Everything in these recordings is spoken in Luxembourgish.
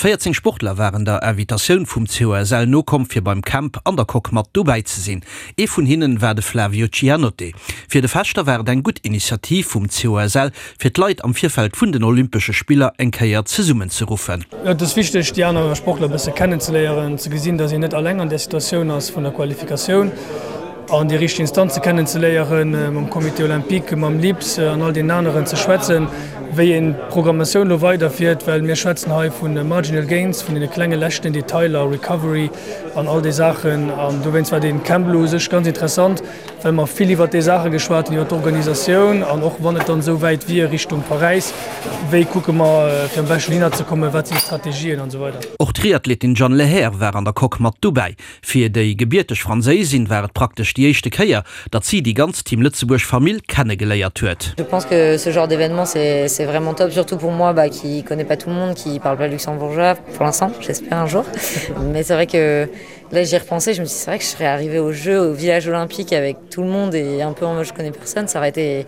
14 Sportler waren der Invitatioun vum COSL nokomm, fir beim Camp an der Coque mat dobäi ze sinn. Ee vun hinnen war de Flavio Cianotte. Fir de Fechter war et eng gutt Initiativ vum COSL, fir d'Leit am Virfeld vun den Olympesche Spiller eng Kéier zesummenzeruffen. Et ass wichteg, déi aner Sportler e bësse kennenzeléieren, ze gesinn, datt een net alleng an där Situatioun ass vun der Qualifikatioun an déi richteg Instanze kennenzeléieren, mam Comité olympique, mam LIPS an all deenen aneren ze schwätzen, wéi een d'Programmatioun elo weiderfiert, well mir schwätzen hei vu marginal gains, vun deene klenge leschten Detailer, Recovery an all déi Saachen. An dowéinst war dee Camp elo u sech ganz interessant, well mer vill iwwert déi Saache geschwat hunn, iwwert d'Organisatioun an och wann et dann esou wäit wier Richtung Paräis, wéi kucke mer fir am beschten hinner ze kommen, wat sinn d'Strategien an esou weider. Och d'Triathletin Jeanne Lehair war an der Coque mat dobäi. Fir déi gebierteg Franséisin war et praktesch déi éischte Kéier, datt si déi ganz Team Lëtzebuerg Famill kennegeléiert huet. Je pense que ce genre d'événement c'est c'est vraiment top, surtout pour moi bah qui connais pas tout le monde, qui parle pas luxembourgeois pour l'instant, j'espère un jour. Mais c'est vrai que là j'y repensais, je me suis dit c'est vrai que je serais arrivée au jeu au village olympique avec tout le monde et un peu en mode je connais personne, ça aurait été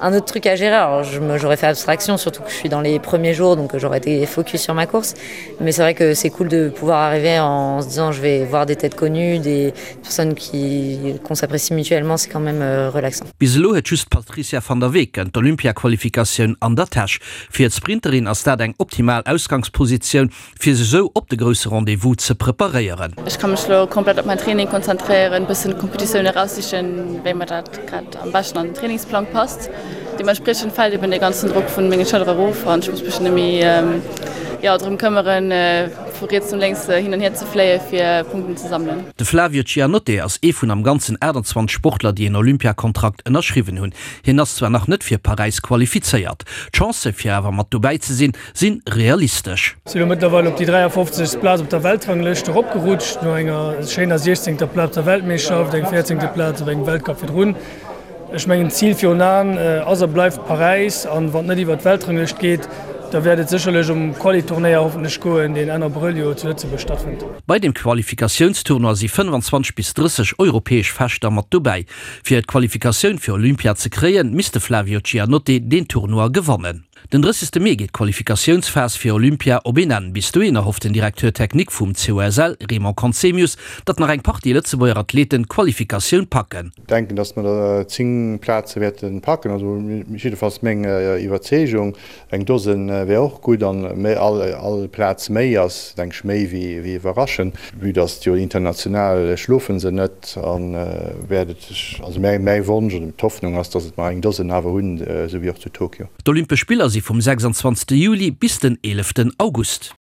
un autre truc à gérer. Alors j'aurais fait abstraction, surtout que je suis dans les premiers jours, donc j'aurais été focus sur ma course. Mais c'est vrai que c'est cool de pouvoir arriver en se disant je vais voir des têtes connues, des personnes qui qu'on s'apprécie mutuellement, c'est quand même euh, relaxant. Bis elo huet just d'Patricia van der Weken d'Olympiaqualifikatioun an der Täsch. Fir d'Sprinterin ass dat eng optimal Ausgangspositioun, fir sech esou op de grousse Rendez-vous ze preparéieren. Ech ka mech lo komplett op mäin Training konzentréieren, bëssen d'Kompetitioun eraussichen, wéi mer dat grad am beschten an den Trainingsplang passt. Deementspriechend fält eben dee ganzen Drock vun menge Schëllere erof an ech muss mech net méi jo drëm këmmeren, vu riets no lénks hin an hier ze fléie fir Punkten ze sammelen. De Flavio Cianotte ass ee vun am Ganzen 28 Sportler, déi en Olympiakontrakt ënnerschriwwen hunn. Hien ass zwar nach net fir Paräis qualifizéiert, d'Chancë fir awer mat dobäi ze sinn, sinn realistesch. Sinn elo mëttlerweil op déi 53. Plaz op der Weltranglëscht eropgerutscht, no enger schéiner 16. Plaz op der Weltmeeschterschaft, eng 14. Plaz op engem Weltcup virdrun. Ech mengen d'Zil virun Aen ass a bleift Paräis an wann et net iwwer d'Weltranglëscht geet, da wäert et sécherlech um Quali-Turnéier hoffentlech goen, deen Enn Abrëll jo zu Lëtzebuerg stattfënnt. Bei dem Qualifikatiounstournoi si 25 bis 30 europäesch Fechter mat dobäi. Fir d'Qualifikatioun fir Olympia ze kréien, misst de Flavio Giannotte deen Tournoi gewannen. Den 30. Mee geet d'Qualifikatiounsphas fir Olympia op een Enn. Bis dohin erhofft den Directeur technique vum COSL, Raymond Conzemius, datt nach eng Partie Lëtzebuerger Athleten d'Qualifikatioun packen. Denken, datt mer der 10 Plaze wäerte packen, also jiddefalls meng Iwwerzeegung. Eng Dosen wär och gutt an all Plaz méi ass, denk ech, méi wéi iwwerraschend. Vue datt jo international schlofe se net a wäert et, also mäi Wonsch oder d'Hoffnung ass, datt et mer eng Dosen awer hunn, esou wéi och zu Tokio. D'Olympesch Spiller si vum 26 Juli bis den 11 August.